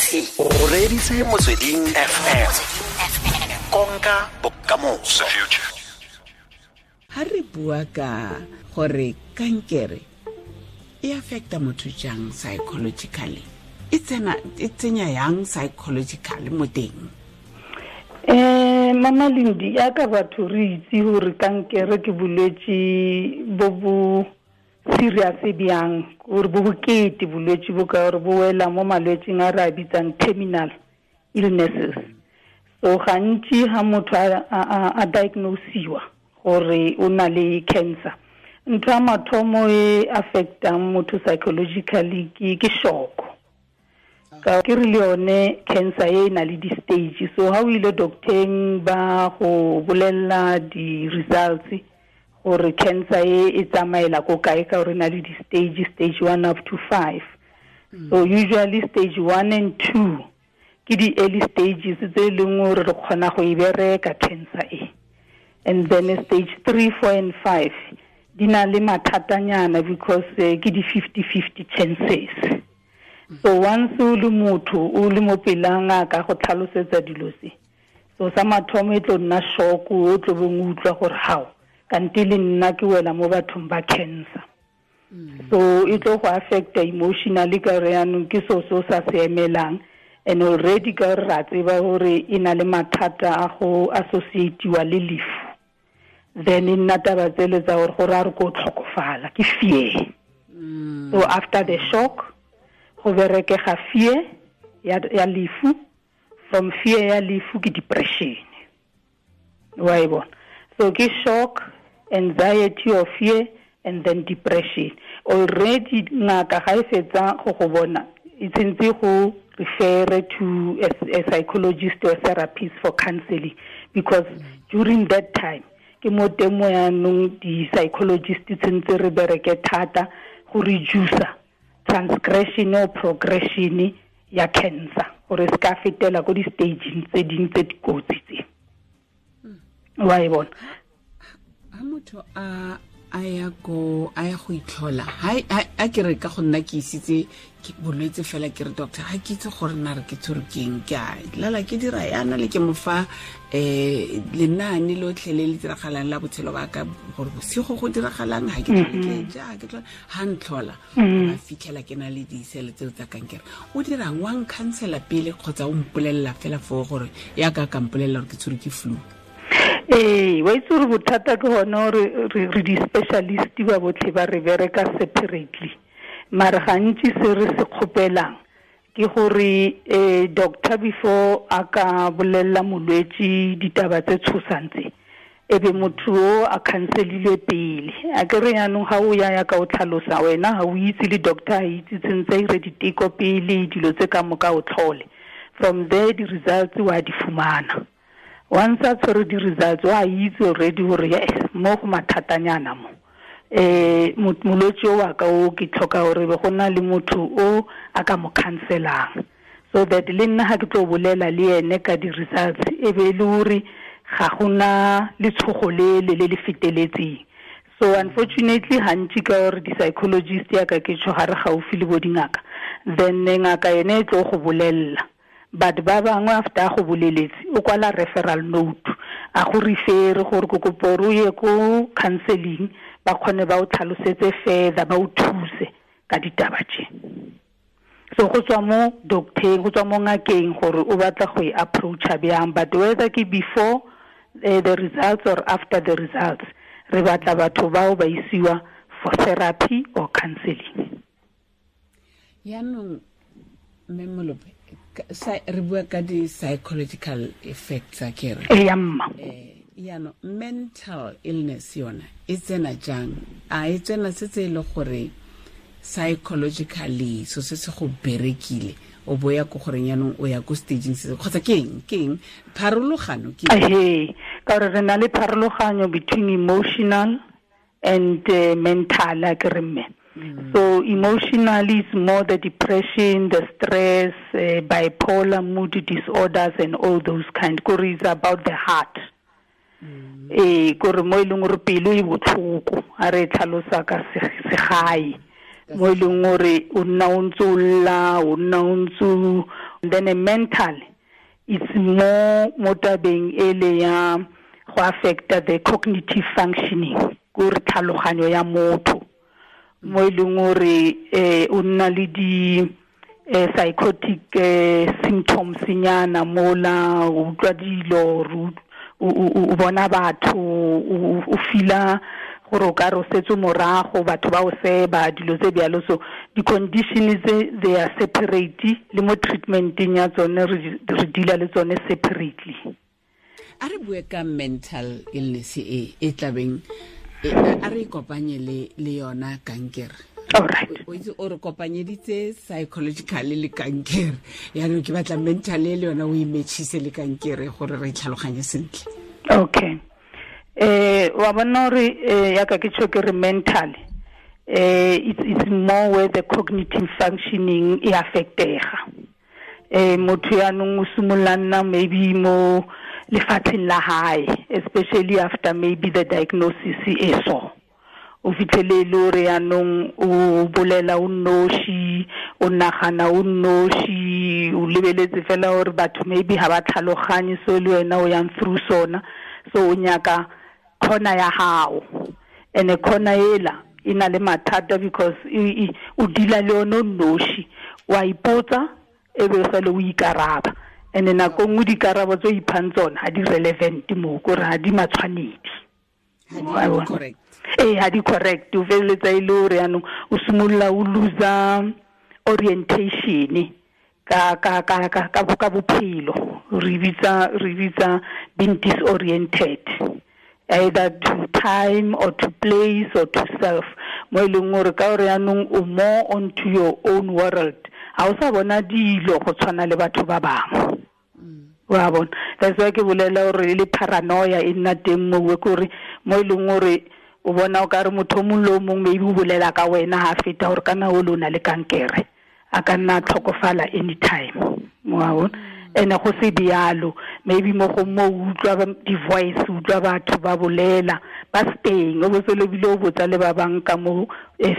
O reditse Motsweding FM, konka bokamoso. Ha re bua ka gore kankere e affecta motho jang psychologically, e tsena e tsenya yang psychologically mo teng? Mama Lindi, ya ka batho re itse gore kankere ke bolwetse bo bo serious bjang, gore bo bokete bolwetse bo, ka gore bo wela mo malwetseng a re a bitsang terminal illnesses. So gantsi ha motho a diagnosiwa gore o na le cancer, ntho ya mathomo e affectang motho psychologically ke shock. Ka ke re le yone cancer e na le di-stage, so ha o ile docteng ba go bolella di-results gore cancer e e tsamaela ko kae, ka gore e na le di-stage, stage 1 up to 5. So usually stage 1 and 2 ke di-early stages tse e leng gore re kgona go e bereka cancer e, and then stage 3, 4 and 5 di na le mathatanyana because ke di 50-50 chances. So once o le motho o le mo pela ngaka go tlhalosetsa dilo tse, so sa mathomo e tlo nna shock, o tlo beng o utlwa gore hao kante le nna ke wela mo bathong ba cancer. So e tlo go affecta emotionally ka gore yaanong ke so se o sa se emelang, and already ka gore ra tseba gore e na le mathata a go associatiwa le lefu, then e nna taba tsele tsa gore gore a re ko tlhokofala ke fear. So after the shock go berekega fear ya lefu, from fear ya lefu ke depression, wa e bona. So ke shock, anxiety or fear, and then depression. Already ngaka ga e fetsa go go bona, e tshwantse go refer to a psychologist or therapist for counseling, because during that time ke mo teng mo yaanong di-psychologist tshwantse re bereke thata go reduce transgression or progression ya cancer, gore se ka fetela ko di-stageng tse dingwe tse dikotsi tse. Wa e bona? Ha motho a ya go a ya go itlhola, ha ke re ka go nna ke isitse ke bolwetse fela, ke re doctor ha ke itse gore nna re ke tshwerwe ke eng, ke a lala ke dira yana le ke mo fa lenaane lotlhe le le diragalang la botshelo ba ka, gore bosigo go diragalang, ha ke tlhole ke ja, ha ke tlhole, ha ntlhola, ba fitlhela ke na le disele tseo tsa kankere. O dirang? Wa nkhansela pele kgotsa o mpolelela fela foo gore ya ka ka mpolelela gore ke tshwerwe ke flu? Ee, wa itse gore bothata ke gone gore re di-specialist ba botlhe ba re bereka separately, mare gantsi se re se kgopelang ke gore doctor before a ka bolella molwetse ditaba tse tshosang tse, e be motho o a counselile pele. A ke re yaanong ga o ya ya ka o tlhalosa wena ga o itse le doctor a itse, tshwantse a ire diteko pele, dilo tse ka moka o tlhole, from there di-results wa di fumana. Once a tshwere di-results wa itse already gore yes, mo go mathatanyana mo, molwetse o wa ka o ke tlhoka gore be go na le motho o a ka mo counselang, so that le nna ga ke tlo bolela le ene ka di-results e be e le gore ga gona letshogo le le le le feteletseng. So unfortunately gantsi ka gore di-psychologist ya ka ke tsho ga re gaufi le bo dingaka, then ngaka ene e tlo go bolella, but ba bangwe after a go boleletse o kwala referral note a go refere gore ko kopo gore o ye ko counseling, ba kgone ba o tlhalosetse further, ba o thuse ka ditaba tse. So go tswa mo docteng, go tswa mo ngakeng gore o batla go e approacha bjang, but whether ke before the results or after the results, re batla batho bao ba isiwa for therapy or counseling. Yaanong mme Molope, re bua ka di-psychological effects a ke re. Ee, ya mma. Yaanong mental illness yona e tsena jang? A e tsena setse e le gore psychologically so se se go berekile, o bo ya ko goreng yaanong o ya ko stageng se, kgotsa ke eng? Ke eng pharologano ke eng? Ehe, ka gore re na le pharologanyo between emotional and mental, a ke re mme. So emotionally it's more the depression, the stress, bipolar, mood disorders and all those kind. Kore it's about the heart. Kore mo e leng gore pelo e botlhoko, a re e tlhalosa ka segae. Mo e leng gore o nna o ntse o lla, o nna o ntse o Then a mental, it's more mo tabeng ele ya go affecta the cognitive functioning, gore tlhaloganyo ya motho, mo e leng gore o nna le di psychotic symptoms nyana mola, o utlwa dilo, o bona batho, o fila gore o ka re o setse morago, batho ba o seba, dilo tse bjalo. So di-condition tse, they are separate, le mo treatmenteng ya tsone re deala le tsone separately. A re bue ka mental illness e tlabeng, a re kopanye le yona kankere. Alright. O itse o re kopanyeditse psychologically le kankere, yaanong ke batla mental le yona o e matchise le kankere gore re tlhaloganye sentle. Okay. Wa bona gore yaka ke tjho ke re mental, it's more where the cognitive functioning e affectega. Motho yaanong o simolola nna maybe mo lefatsheng la hae, especially after maybe the diagnosis e so. O fitlhele le hore yaanong o bolela o nnoši, o nagana o nnoši, o lebeletse fela hore batho maybe ha ba tlhaloganye so le wena o yang through sona. So o nyaka khona ya hao, ene khona ela e na le mathata because o dila le yone o nnoši, wa ipotsa e be sale o ikaraba, ene nako nngwe dikarabo tse o iphang tsona ha di relevant mo, kore ha di matshwanedi. Correct. Ha di correct. O feleletsa e le hore yaanong o simolola o loser orientation ka ka ka ka ka bophelo. Re bitsa being disoriented, either to time or to place or to self, mo e leng hore ka hore yaanong o more onto your own world, ha o sa bona dilo go tshwana le batho ba bangwe. Wa bona, that's why ke bolela hore le paranoia e nna teng mo, kore mo e leng hore o bona o ka re motho o mong le o mong maybe o bolela ka wena ha feta hore kana o lona le kankere, a ka nna tlhokofala anytime. Wa bona, ene go se bjalo, maybe mo go mo utlwa di-voice, utlwa batho ba bolela ba steng, o bo se lebile o botsa le ba bang ka mo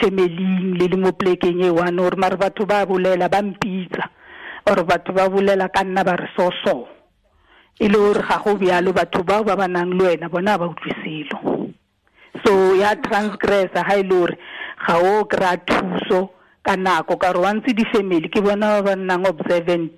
familing le le mo plekeng e one, hore mare batho ba bolela ba mpitsa, or batho ba bolela ka nna ba re so so, e le hore ga go bjalo, batho bao ba ba nang le wena bona ba utlwe selo. So ya transgressa ha e le hore ga o kry-a thuso ka nako, ka gore wantse di-family ke bona ba ba nnang observant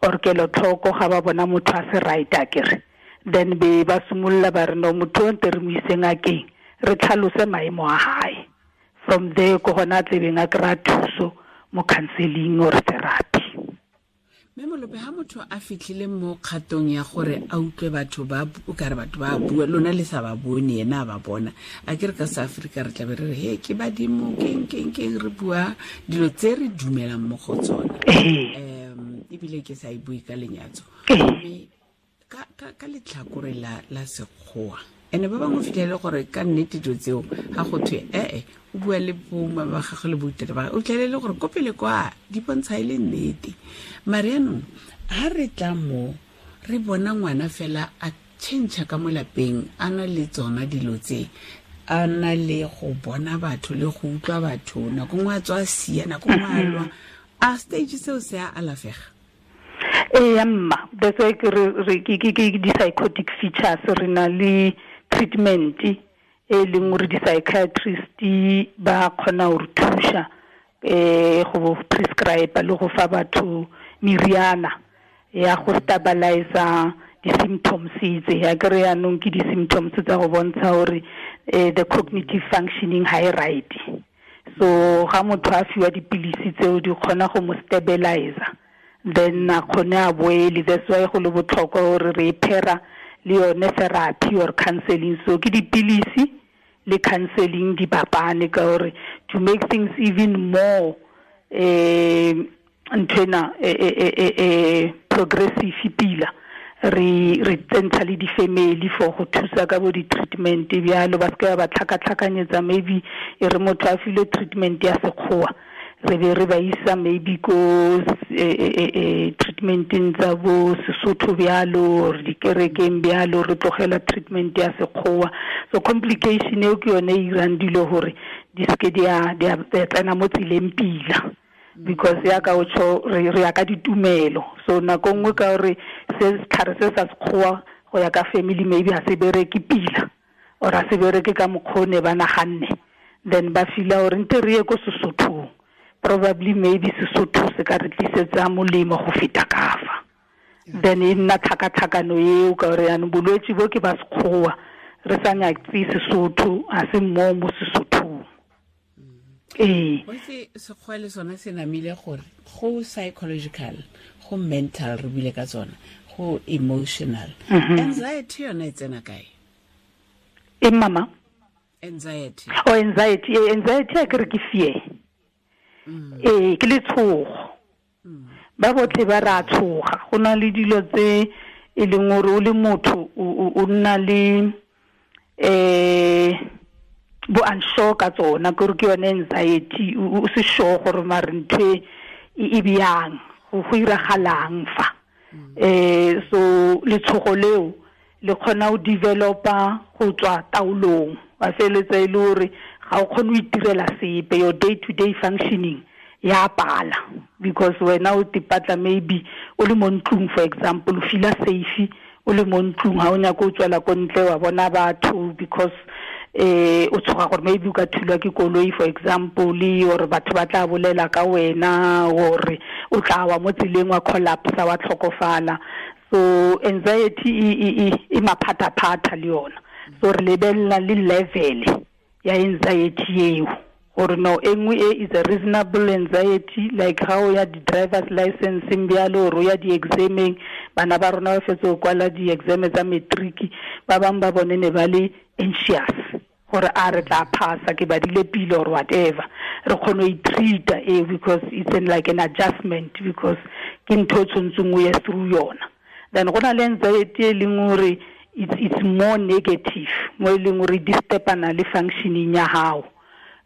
or kelotlhoko ga ba bona motho a se right akere, then be ba simolola ba re no, motho o nte re mo ise ngakeng re tlhalose maemo a hae. From there ko gona a tlebeng a kry-a thuso mo counseling or therapy. Mme Molope, ha motho a fitlhile mo kgatong ya gore a utlwe batho ba o kare batho ba bua, lona le sa ba bone, yena a ba bona, a ke re ka South Africa re tlabe re re he ke badimo, keng keng keng, re bua dilo tse re dumelang mo go tsona, ebile ke sa e bue ka lenyatso. Mme ka letlhakore la sekgowa, ene ba bangwe fitlhele gore ka nnete dilo tseo ga go thwe o bua le boma ba gagwe le boitele ba gagwe, o fitlhelele gore ko pele kwa di bontsha e le nnete. Mare yaanong ha re tla mo re bona ngwana fela a change ka mo lapeng, a na le tsona dilo tse, a na le go bona batho le go utlwa batho, nako nngwe a tswa a sia, nako nngwe a lwa, a stage seo se a alafega? Ee mma, that's why ke re ke di-psychotic features, re na le treatment e leng gore di-psychiatrist ba kgona go re thuša go prescribe le go fa batho meriana ya go stabilize di-symptoms tse. Ya kere yaanong ke di-symptoms tsa go bontsha gore the cognitive functioning ha e right. So ga motho a fiwa dipilisi tseo di kgona go mo stabilize, then a kgone a boele. That's why go le botlhokwa gore re phera le yone therapy or counseling. So ke dipilisi le counseling di bapane, ka gore to make things even more nthwena progressive pila, re tsentsha le di-family for go thusa ka bo di-treatment bjalo, ba seke ba tlhakatlhakanyetsa maybe e re motho a filwe treatment ya sekgowa, re be re ba isa maybe ko treatmenteng tsa bo Sesotho bjalo, or dikerekeng bjalo, re tlogela treatment ya sekgowa. So complication eo ke yone e irang dilo gore di seke di a tsena mo tseleng pila. Because ya ka o tsho re ya ka ditumelo. So nako nngwe ka gore se setlhare se sa sekgowa go ya ka family maybe ha se bereke pila or ha se bereke ka mokgone ba naganne, then ba fila gore nte re ye ko Sesothong, probably maybe Sesotho se ka re tlisetsa molemo go feta kafa. Then e nna tlhakatlhakano eo ka gore yanong bolwetse bo ke ba sekgowa re sa nyatse Sesotho, ha se mo mo Sesothong. Ee. Itse sekgowa le sone se namile gore go psychological, go mental, re buile ka tsona, go emotional. Anxiety yone e tsena kae? E mama? Anxiety. Oh, anxiety. Anxiety a ke re ke fear. Ee, ke letshogo. Ba botlhe ba ra tshoga. Go na le dilo tse e leng gore o le motho o nna le bo unsure ka tsona, ke gore ke yone anxiety, o se sure gore mare ntho e bjang, go iragalang fa. So letshogo leo le kgona go developa go tswa taolong, wa feletsa e le gore ga o kgone go itirela sepe, your day to day functioning ya pala, because wena o tipatla maybe o le mo ntlong, for example, o feel safe o le mo ntlong, ha o nyaka o tswela ko ntle wa bona batho because o tshoga gore maybe o ka thulwa ke koloi, for example, or batho ba tla bolela ka wena, or o tla wa mo tseleng wa collapse wa tlhokofala. So anxiety e maphataphatha le yona. So re lebelela le level ya anxiety eo, gore no e nngwe e is a reasonable anxiety, like how ya di-driver's license bjalo, or ya di-exameng, bana ba rona ba fetse go kwala di-exam tsa matric, ba bangwe ba bone ne ba le anxious gore a re tla phasa, ke badile pele or whatever. Re kgone go i-treat-a e because it's an, like an adjustment, because ke ntho e tshwanetseng o ye through yona. Then go na le anxiety e leng gore it's more negative, mo e leng gore e disturb-ana le functioning ya gago.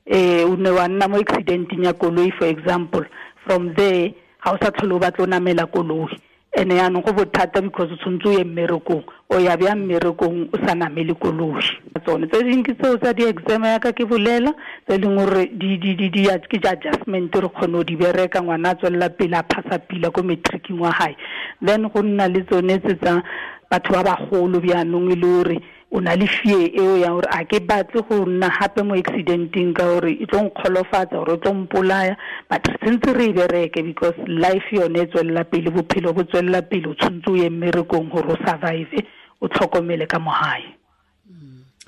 O ne wa nna mo accidenteng ya koloi, for example, from there ga o sa tlhole o batla o namela koloi, ene yaanong go bothata because o tshwanetse o ye mmerekong, o ya bjang mmerekong o sa namele koloi. Tsone tse dingwe ke tseo tsa di-exam yaka ke bolela, tse e leng gore ke di-adjustment re kgone go di bereka, ngwana a tswelela pele a phasa pila ko matricing wa hae. Then go nna le tsone tse tsa batho ba bagolo bjaanong e le gore o na le fear eo ya gore a ke batle go nna gape mo accidenteng ka gore e tlo nkgolofatsa gore e tlo mpolaya, but re tshwanetse re e bereke because life yone e tswelela pele, bophelo bo tswelela pele, o tshwanetse o ye mmerekong gore o survive, o tlhokomele ka mo gae.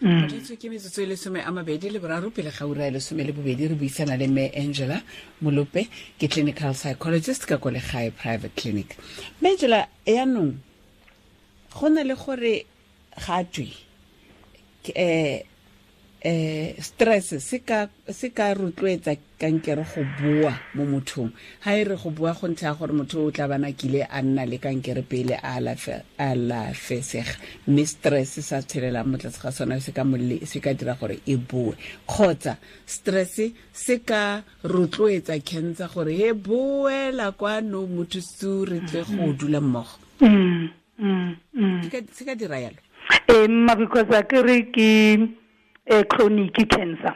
Ke metsotso e 23 pele ga ura e 12, re buisana le Mme Angela Molope, ke clinical psychologist ka ko Legae Private Clinic. Mme Angela, yaanong go na le gore ga twe stress se ka rotloetsa kankere go boa mo mothong. Ha e re go boa go ntlha gore motho o tla bana kile a nna le kankere pele a alafesega, mme stress sa tshelelang mo tlase ga sona se ka dira gore e boe, kgotsa stress se ka rotloetsa cancer gore e boela kwano motho su re tle go dula mmogo. Se ka dira yalo? Mma, because a ke re ke chronic cancer.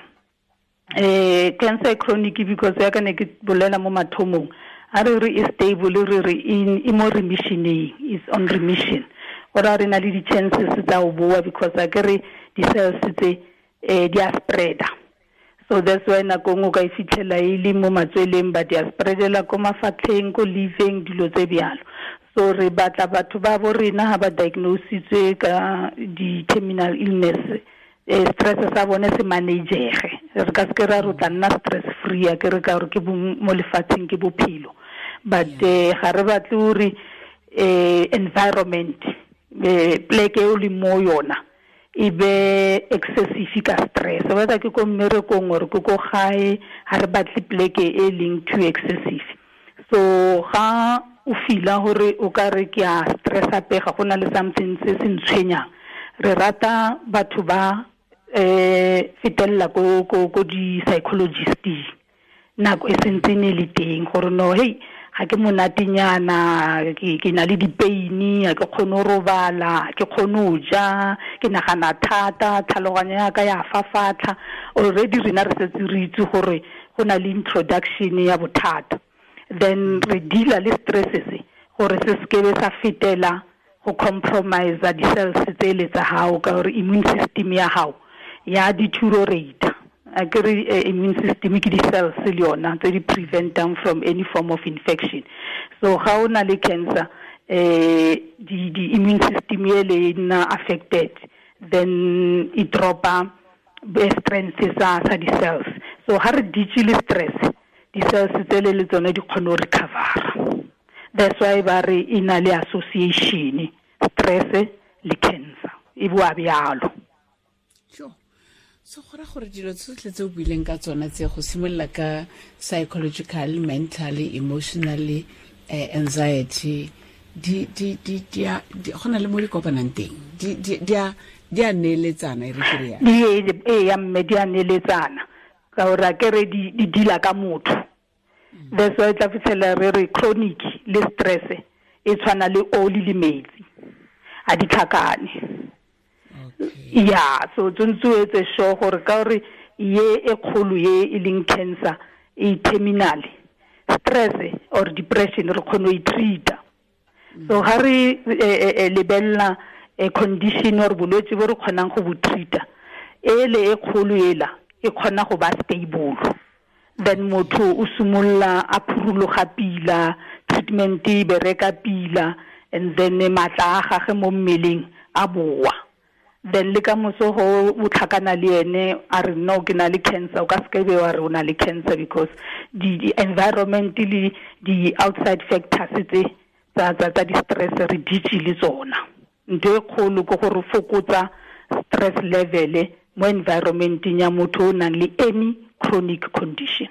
Cancer chronic because ya ka ne ke bolela mo mathomong, a re re e stable, re re e mo remissioning, is on remission. Gore re na le di-chances tsa go boa because a ke re di-cells tse di a spreada. So that's why nako nngwe o ka e fitlhela e le mo matsweleng, but di a spreadela ko mafatlheng, ko liveng, dilo tse bjalo. So re batla batho ba bo rena ha ba diagnositswe ka di-terminal illness, stress sa bone se managege. Re ka se ke ra re o tla nna stress free, a ke re ka gore ke mo lefatsheng ke bophelo, but ga re batle gore environment, pleke e o leng mo yona e be excessive ka stress, whether ke ko mmerekong or ke ko gae, ga re batle pleke e leng too excessive. So ga o fila gore o ka re ke a stress pega, go na le something se se ntshwenyang, re rata batho ba fetelela ko di-psychologist nako e sentse ne le teng gore no, hey, ga ke monatenyana, ke na le di-pain, ga ke kgone go robala, ke kgone go ja, ke nagana thata, tlhaloganyo ya ka ya fafatlha. Already rena re setse re itse gore go na le introduction ya bothata. Then re deala le stress se gore se sekebe sa fetela go compromise di-cells tsele tsa gago, ka gore immune system ya gago ya deteriorate. A ke re immune system ke di-cells le yona tse di preventang from any form of infection. So ga o na le cancer, di immune system ele e nna affected, then e dropa strength sa di-cells. So ga re ditse le stress, di-cells tsele le tsone di kgone go recovera. That's why ba re e na le association, stress le cancer e boa bjalo. Sure. So go ra gore dilo tsotlhe tse o buileng ka tsona tse, go simolola ka psychological, mentally, emotionally, anxiety, di go na le mo di kopanang teng, di a neeletsana, e re ke re ya. Di ya mme di a neeletsana, ka gore a ke re di deala ka motho. That's why tla fitlhela re re chronic le stress e tshwana le oli le metsi, a di tlhakane. Yeah, so tshwanetse o etse sure gore ka gore ye e kgolo ye e leng cancer e terminal, stress or depression re kgone go e treata. So ga re lebella condition or bolwetse bo re kgonang go bo treata, ele e kgolo ela e kgona go ba stable. Then motho o simolola a phurologa pila, treatment e bereka pila, and then matla a gage mo mmeleng a boa. Then le ka moso go o tlhakana le ene a re no ke na le cancer, o ka se be wa re o na le cancer, because the environment le di outside factors tse tsa di stress re ditse le tsona. Ntho e kgolo ke gore fokotsa stress level mo environmenteng ya motho o nang le any chronic condition.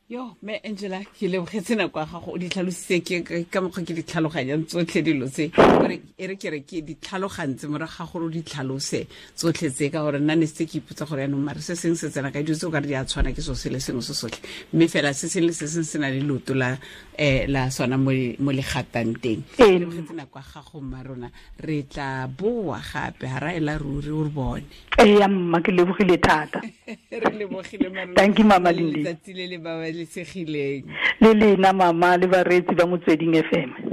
Yo, me Angela, ke lebogetse nako ya gago, o di tlhalositse ke ka mokgwa ke di tlhaloganyang tsotlhe dilo tse, gore e re ke re ke di tlhalogantse morago ga gore o di tlhalose tsotlhe tse, ka gore nna ne setse ke ipotsa gore yaanong mare se sengwe se tsena ka dilo tse o ka re di a tshwana ke seo se le sengwe se sotlhe, mme fela se sengwe le se sengwe se na le leoto la sona mo le gatang teng. Ke lebogetse nako ya gago mma rona, re tla boa gape ga ra ela ruri o re bone. Ee mma, ke lebogile thata. Re lebogile mma rona. Thank you mama Lindi. Letsatsi le le babalesegileng. Le lena mama le bareetsi ba Motsweding FM.